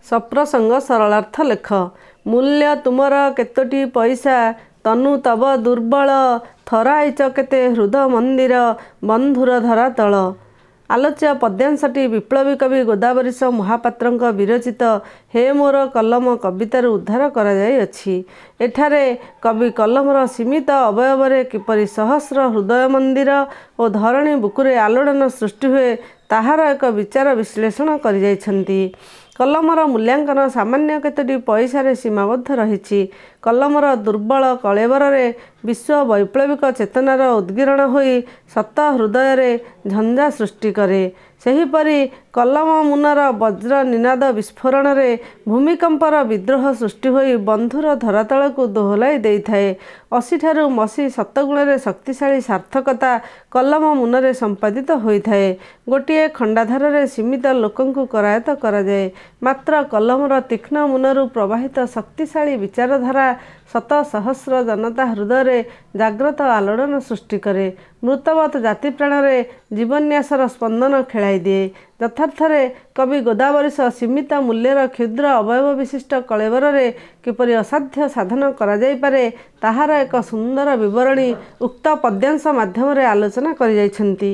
ସପ୍ରସଙ୍ଗ ସରଳାର୍ଥ ଲେଖ। ମୂଲ୍ୟ ତୁମର କେତୋଟି ପଇସା, ତନୁ ତବ ଦୁର୍ବଳ, ଥରାଇଚ କେତେ ହୃଦ ମନ୍ଦିର, ବନ୍ଧୁର ଧରାତଳ। ଆଲୋଚ୍ୟ ପଦ୍ୟାଂଶଟି ବିପ୍ଳବୀ କବି ଗୋଦାବରୀଶ ମହାପାତ୍ରଙ୍କ ବିରଚିତ ହେ ମୋର କଲମ କବିତାରୁ ଉଦ୍ଧାର କରାଯାଇଅଛି। ଏଠାରେ କବି କଲମର ସୀମିତ ଅବୟବରେ କିପରି ସହସ୍ର ହୃଦୟ ମନ୍ଦିର ଓ ଧରଣୀ ବୁକୁରେ ଆଲୋଡ଼ନ ସୃଷ୍ଟି ହୁଏ, ତାହାର ଏକ ବିଚାର ବିଶ୍ଳେଷଣ କରିଯାଇଛନ୍ତି। କଲମର ମୂଲ୍ୟାଙ୍କନ ସାମାନ୍ୟ କେତୋଟି ପଇସାରେ ସୀମାବଦ୍ଧ ରହିଛି। କଲମର ଦୁର୍ବଳ କଳେବରରେ ବିଶ୍ୱ ବୈପ୍ଳବିକ ଚେତନାର ଉଦ୍ଗୀରଣ ହୋଇ ଶତ ହୃଦୟରେ ଝଞ୍ଜା ସୃଷ୍ଟି କରେ। ସେହିପରି କଲମ ମୁନର ବଜ୍ର ନିନାଦ ବିସ୍ଫୋରଣରେ ଭୂମିକମ୍ପର ବିଦ୍ରୋହ ସୃଷ୍ଟି ହୋଇ ବନ୍ଧୁର ଧରାତଳକୁ ଦୋହଲାଇ ଦେଇଥାଏ। ଅସିଠାରୁ ମସୀ ଶତଗୁଣରେ ଶକ୍ତିଶାଳୀ ସାର୍ଥକତା କଲମ ମୁନରେ ସମ୍ପାଦିତ ହୋଇଥାଏ। ଗୋଟିଏ ଖଣ୍ଡାଧାରରେ ସୀମିତ ଲୋକଙ୍କୁ କରାୟତ୍ତ କରାଯାଏ। ମାତ୍ର କଲମର ତୀକ୍ଷ୍ଣ ମୁନରୁ ପ୍ରବାହିତ ଶକ୍ତିଶାଳୀ ବିଚାରଧାରା ଶତ ସହସ୍ର ଜନତା ହୃଦୟରେ ଜାଗ୍ରତ ଆଲୋଡ଼ନ ସୃଷ୍ଟି କରେ। ମୃତବତ୍ ଜାତିପ୍ରାଣରେ ଜୀବନ୍ୟାସର ସ୍ପନ୍ଦନ ଖେଳାଇ ଦିଏ। ଯଥାର୍ଥରେ କବି ଗୋଦାବରୀଶ ସୀମିତ ମୂଲ୍ୟର କ୍ଷୁଦ୍ର ଅବୟବ ବିଶିଷ୍ଟ କଳେବରରେ କିପରି ଅସାଧ୍ୟ ସାଧନ କରାଯାଇପାରେ, ତାହାର ଏକ ସୁନ୍ଦର ବିବରଣୀ ଉକ୍ତ ପଦ୍ୟାଂଶ ମାଧ୍ୟମରେ ଆଲୋଚନା କରିଯାଇଛନ୍ତି।